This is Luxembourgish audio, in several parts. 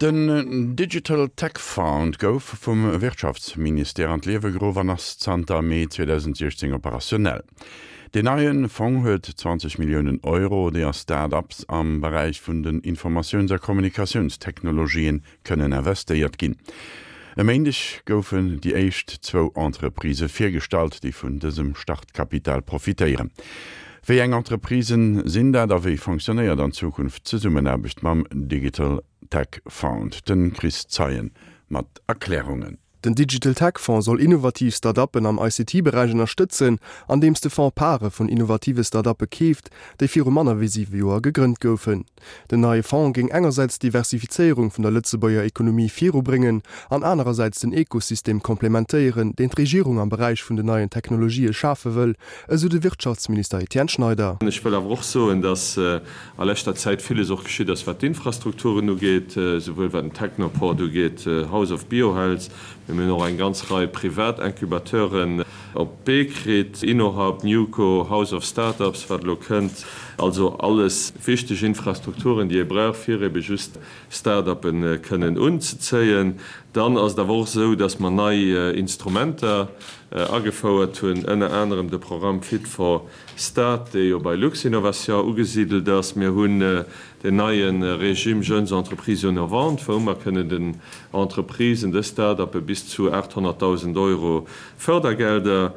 Den Digital Tech Fund gouf vum Wirtschaftsministère an d'Liewe geruff an ass zanter Mee 2016 operationell. Deen neie Fong huet 20 Milliounen Euro, déi a Start-ups am Beräich vun den Informatiouns a Kommunikatiounstechnologien kënnen investéiert ginn. E Méindeg goufen déi éischt zwou Entreprisë virgestallt, déi vun dësem Startkapital profitéieren. Wéi eng Entreprisen sinn dat a wéi fonctionnéiert an Zukunft d'Zesummenaarbecht mam Digital Tech Fund? De Chris Zeien mat Erklärungen. Den Digital Tech Fonds soll innovativ Start-uppen am ICT-Beräich ënnerstëtzen, andeems de Fonds Pare vun innovative Start-uppe keeft, déi viru manner wéi siwe Joer gegrënnt goufen. Den neie Fonds géing engersäits d'Diversifizéierung vun der Lëtzebuerger Ekonomie virubréngen an anerersäits den Ekosystem komplementéieren, deen d'Regierung am Beräich vun den neien Technologië schafe wëll, esou de Wirtschaftsminister Etienne Schneider. Ech wëll awer och soen, dass a leschter Zäit villes och geschitt ass, wat d'Infrastrukturen ugeet, souwuel wat den Technoport ugeet, House of Biohealth, mee mir hunn och eng ganz Rei privat Incubateuren op d'Bee kritt, InnoHub, NewCo, House of Startups, wat elo kënnt. Also alles wichteg Infrastrukturen, déi ee brauch, fir ebe just Start-uppe kënnen unzezéien. Dann ass et awer och esou, dass mer nei Instrumenter agefouert hunn, ënner anerem de Programm Fit for Start, dee jo bei Luxinnovation ugesidelt ass. Mir hunn den neie Régime Jeunes Entreprises Innovantes, wou mer kënnen den Entreprisen, de Start-uppe bis zu 800.000 Euro Fördergelder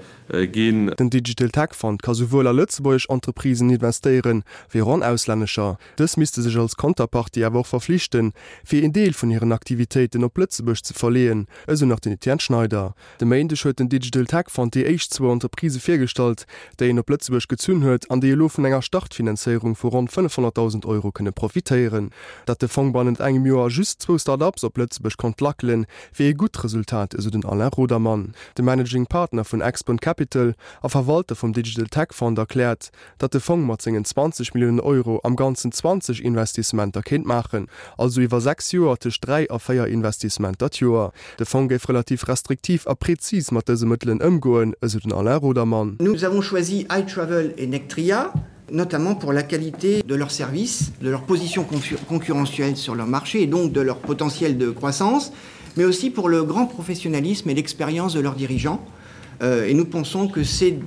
ginn. Den Digital Tech Fund ka souwuel a lëtzebuergesch Entreprisen investéieren, wéi och an auslännescher. Dës misste sech als Konterpartie awer och verflichten, fir een Deel vun hiren Aktivitéiten op Lëtzebuerg ze verleeën, esou nach den Etienne Schneider. De Méindeg huet den Digital Tech Fund déi éischt zwou Entreprisë virgestallt, déi en op Lëtzebuerg gezunn huet an déi elo vun enger Startfinanzéierung vu ronn 500.000 Euro kënne profitéieren. Datt de Fong bannent engem Joer just zwou Start-ups op Lëtzebuerg konnt lackelen, wier ee gutt Resultat, esou den Alain Rodermann. De Managing Partner vun Expon Capital a Verwalter vum Digital Tech Fund erkläert, datt de Fong mat sengen 20 Milliounen Euro am Ganzen 20 Investissementer kéint maachen, also iwwer 6 Joer tëscht 3 a 4 Investissementer d'Joer. De Fong géif relativ restriktiv a prezis mat dëse Mëttelen ëmgoen, esou den Alain Rodermann. Nous avons choisi iTravel et Nectria, notamment pour la qualité de leurs services, de leur position concurrentielle sur leur marché et donc de leur potentiel de croissance, mais aussi pour le grand professionnalisme et l'expérience de leurs dirigeants. Euh, et nous pensons que ces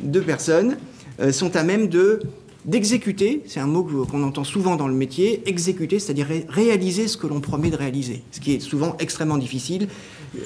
deux personnes euh, sont à même de d'exécuter, c'est un mot qu'on entend souvent dans le métier, exécuter, c'est-à-dire ré réaliser ce que l'on promet de réaliser, ce qui est souvent extrêmement difficile.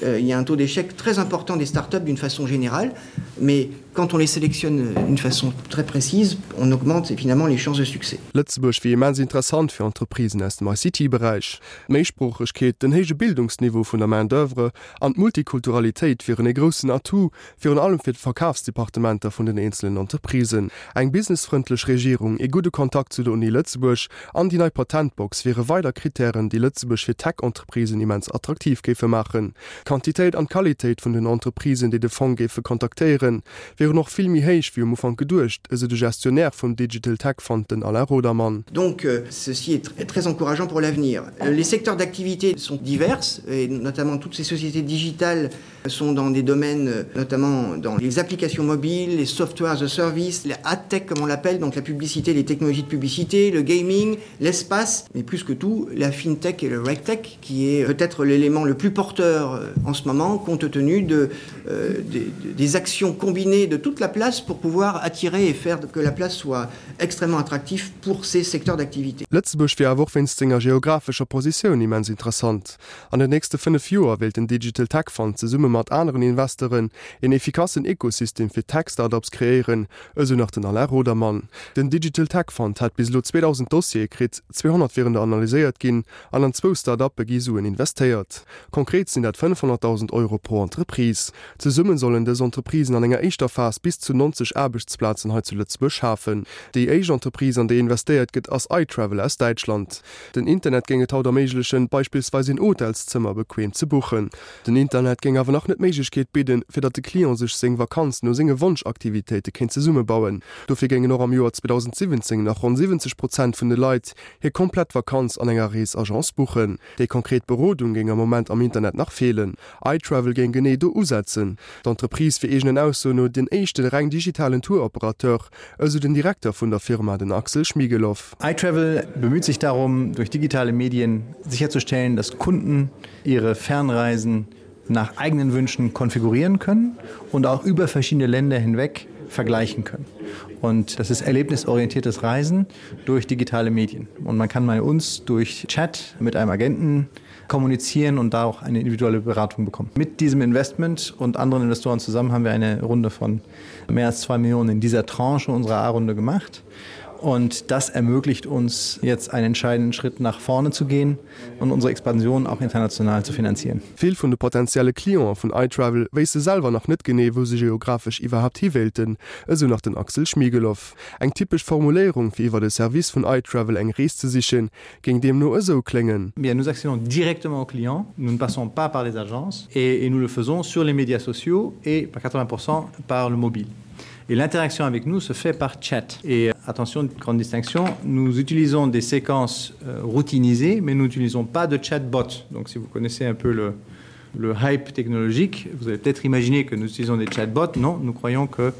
Euh, il y a un taux d'échec très important des startups d'une façon générale, mais quand on les sélectionne euh, d'une façon très précise, on augmente finalement les chances de succès. Lëtzebuerg wier immens interessant fir Entreprisen aus dem ICT-Beräich. D'Méisproochegkeet, den héije Bildungsniveau vun der Main d'oeuvre an d'Multikulturalitéit wieren ee groussen Atout, virun allem fir d'Verkafsdepartementer vun den eenzelen Entreprisen. Eng businessfrëndlech Regierung, ee gudde Kontakt zu der Uni Lëtzebuerg an déi nei Patentbox wiere weider Krittären, déi Lëtzebuerg fir Tech-Entreprisen immens attraktiv géife maachen. D'Quantitéit an d'Qualitéit vun den Entreprisen, déi de Fong géife kontaktéieren, wieren och vill méi héich wéi um Ufank geduecht, esou de Gestionnaire vum Digital Tech Fund, den Alain Rodermann. Donc ceci est très encourageant pour l'avenir. Les secteurs d'activité sont divers et notamment toutes ces sociétés digitales sont dans des domaines notamment dans les applications mobiles, les softwares as a service, la ad-tech comme on l'appelle, donc la publicité, les technologies de publicité, le gaming, l'espace, mais plus que tout la fintech et le regtech qui est peut-être l'élément le plus porteur euh, en ce moment compte tenu de, euh, des, des actions combinées de toute la place pour pouvoir attirer et faire que la place soit extrêmement attractif pour ces secteurs d'activité. Lëtzebuerg wier awer och wéinst senger geographescher Positioun immens interessant. An den nächste 5 Joer wéilt den Digital Tech Fund zesumme mat aneren Investeuren een efficassen Ekosystem fir Tech-Startups kreéieren, esou nach den Alain Rodermann. Den Digital Tech Fund hätt bis elo 2.000 Dossiere kritt, 200 wieren der analyséiert ginn an an zwou Start-uppe gi Suen investéiert. Konkret sinn dat 500.000 Euro pro Entreprise. Zesumme sollen dës Entreprisen an enger éischter Phas bis zu 90 Aarbechtsplazen hei zu Lëtzebuerg schafen. Déi éischt Entreprise, an déi investéiert gëtt, ass iTravel aus Däitschland. Den Internet géing et haut erméiglechen, beispillsweis een Hotelszëmmer bequeem ze buchen. Den Internet géing awer nach net d'Méiglechkeet bidden, fir datt de Client sech seng Vakanz no senge Wonschaktivitéite kéint zesummebauen. Dofir géingen och am Joer 2024. 2017 nach ronn 70 Prozent vun de Leit hir komplett Vakanz an enger Reesagence buchen. Déi konkret Berodung géing am Moment am Internet nach feelen. iTravel géing genee do usetzen. D'Entreprise wier eegenen Aussoen no den éischte reng digitalen Tour-Operateur, esou den Direkter vun der Firma, den Axel Schmiegelow. iTravel bemüht sich darum, durch digitale Medien sicherzustellen, dass Kunden ihre Fernreisen nach eigenen Wünschen konfigurieren können und auch über verschiedene Länder hinweg vergleichen können. Und das ist erlebnisorientiertes Reisen durch digitale Medien. Und man kann bei uns durch Chat mit einem Agenten kommunizieren und da auch eine individuelle Beratung bekommen. Mit diesem Investment und anderen Investoren zusammen haben wir eine Runde von mehr als zwei Millionen in dieser Tranche unserer A-Runde gemacht. Und das ermöglicht uns jetzt einen entscheidenden Schritt nach vorne zu gehen und unsere Expansion auch international zu finanzieren. Vill vun de potentielle Clientë vun iTravel wéisste selwer nach net genee, wou se geographesch iwwerhaapt hi wéilten, esou nach den Axel Schmiegelow. Eng typesch Formuléierung, fir iwwer de Service vun iTravel eng Rees ze sichen, géing deemno esou kléngen. Bien, nous accédons directement aux clients, nous ne passons pas par les agences et, et nous le faisons sur les médias sociaux et par 80 par le mobile. Et l'interaction avec nous se fait par chat. Et attention, grande distinction, nous utilisons des séquences euh, routinisées, mais nous n'utilisons pas de chatbot. Donc si vous connaissez un peu le, le hype technologique, vous avez peut-être imaginé que nous utilisons des chatbots. Non, nous croyons que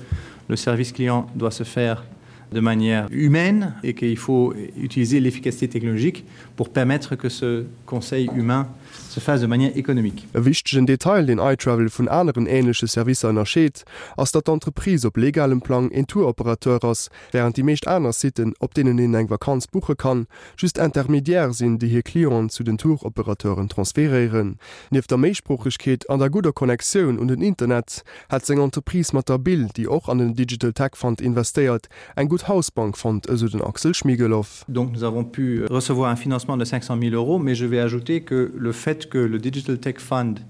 le service client doit se faire de manière humaine et qu'il faut utiliser l'efficacité technologique pour permettre que ce conseil humain se fasse de manière économique. E wichtegen Detail, deen iTravel vun aneren änleche Servicer ënnerscheet, ass, datt d'Entreprise op legalem Plang een Tour-Operateur ass, wärend déi meescht aner Siten, op deenen een eng Vakanz buche kann, just Intermediaire sinn, déi hir Clienten zu den Tour-Operateuren transferéieren. Nieft der Méisproochegkeet an der gudder Connectioun un den Internet, hätt seng Entreprise mat der Bill, déi och an den Digital Tech Fund investéiert, eng gutt Hausbank fonnt, esou den Axel Schmiegelow. Donc nous avons pu recevoir un financement de 500 000 euros, mais je vais ajouter que le fait que le Digital Tech Fund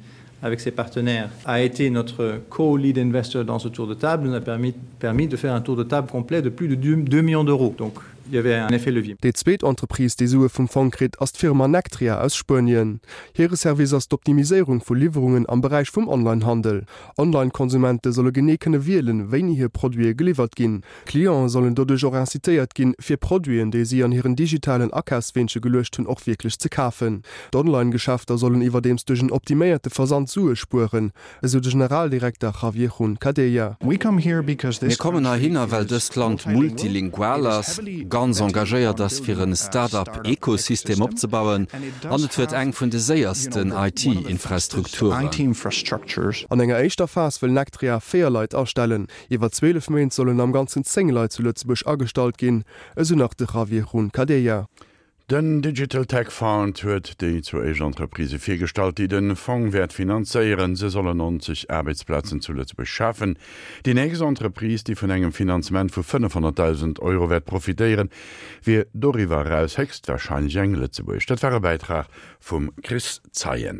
avec ses partenaires a été notre co-lead investor dans ce tour de table nous a permis, permis de faire un tour de table complet de plus de 2, 2 millions d'euros. Donc il y avait un effet levier. Déi zweet Entreprise, déi Sue vum Fong kritt, ass d'Firma Nectria aus Spuenien. Hire Service ass d'Optimiséierung vu Liwwerungen am Beräich vum Online-Handel. Online-Konsumente solle genee kënne wielen, wéini hir Produite geliwwert ginn. Clientë sollen doduerch och incitéiert ginn, fir Produiten, déi si an hiren digitalen Akafsweenche geluecht hunn, och wierklech ze kafen. D'Online-Geschäfter sollen iwwerdeems duerch en optiméierte Versand Sue spueren, esou de Generaldirekter Javier Juncadella. Mir kommen heihinner, well dëst Land multilingual ass, ganz engagéiert ass, fir en Start-up-Ekosystem opzebauen, an et huet eng vun de séiersten IT-Infrastrukturen. An enger éischter Phas wëll Nectria 4 Leit astellen. Iwwer 12 Méint sollen am Ganzen 10 Leit zu Lëtzebuerg agestallt ginn, esou nach de Javier Juncadella. Den Digital Tech Fund huet déi zwou éischt Entreprisë virgestallt, déi de Fong wäert finanzéieren. Se sollen 90 Aarbechtsplazen zu Lëtzebuerg schafen. Déi nächst Entreprise, déi vun engem Finanzement vu 500.000 Euro wäert profitéieren, wier doriwwer eraus héchstwarscheinlech eng lëtzebuergesch. Dat war e Bäitrag vum Chris Zeien.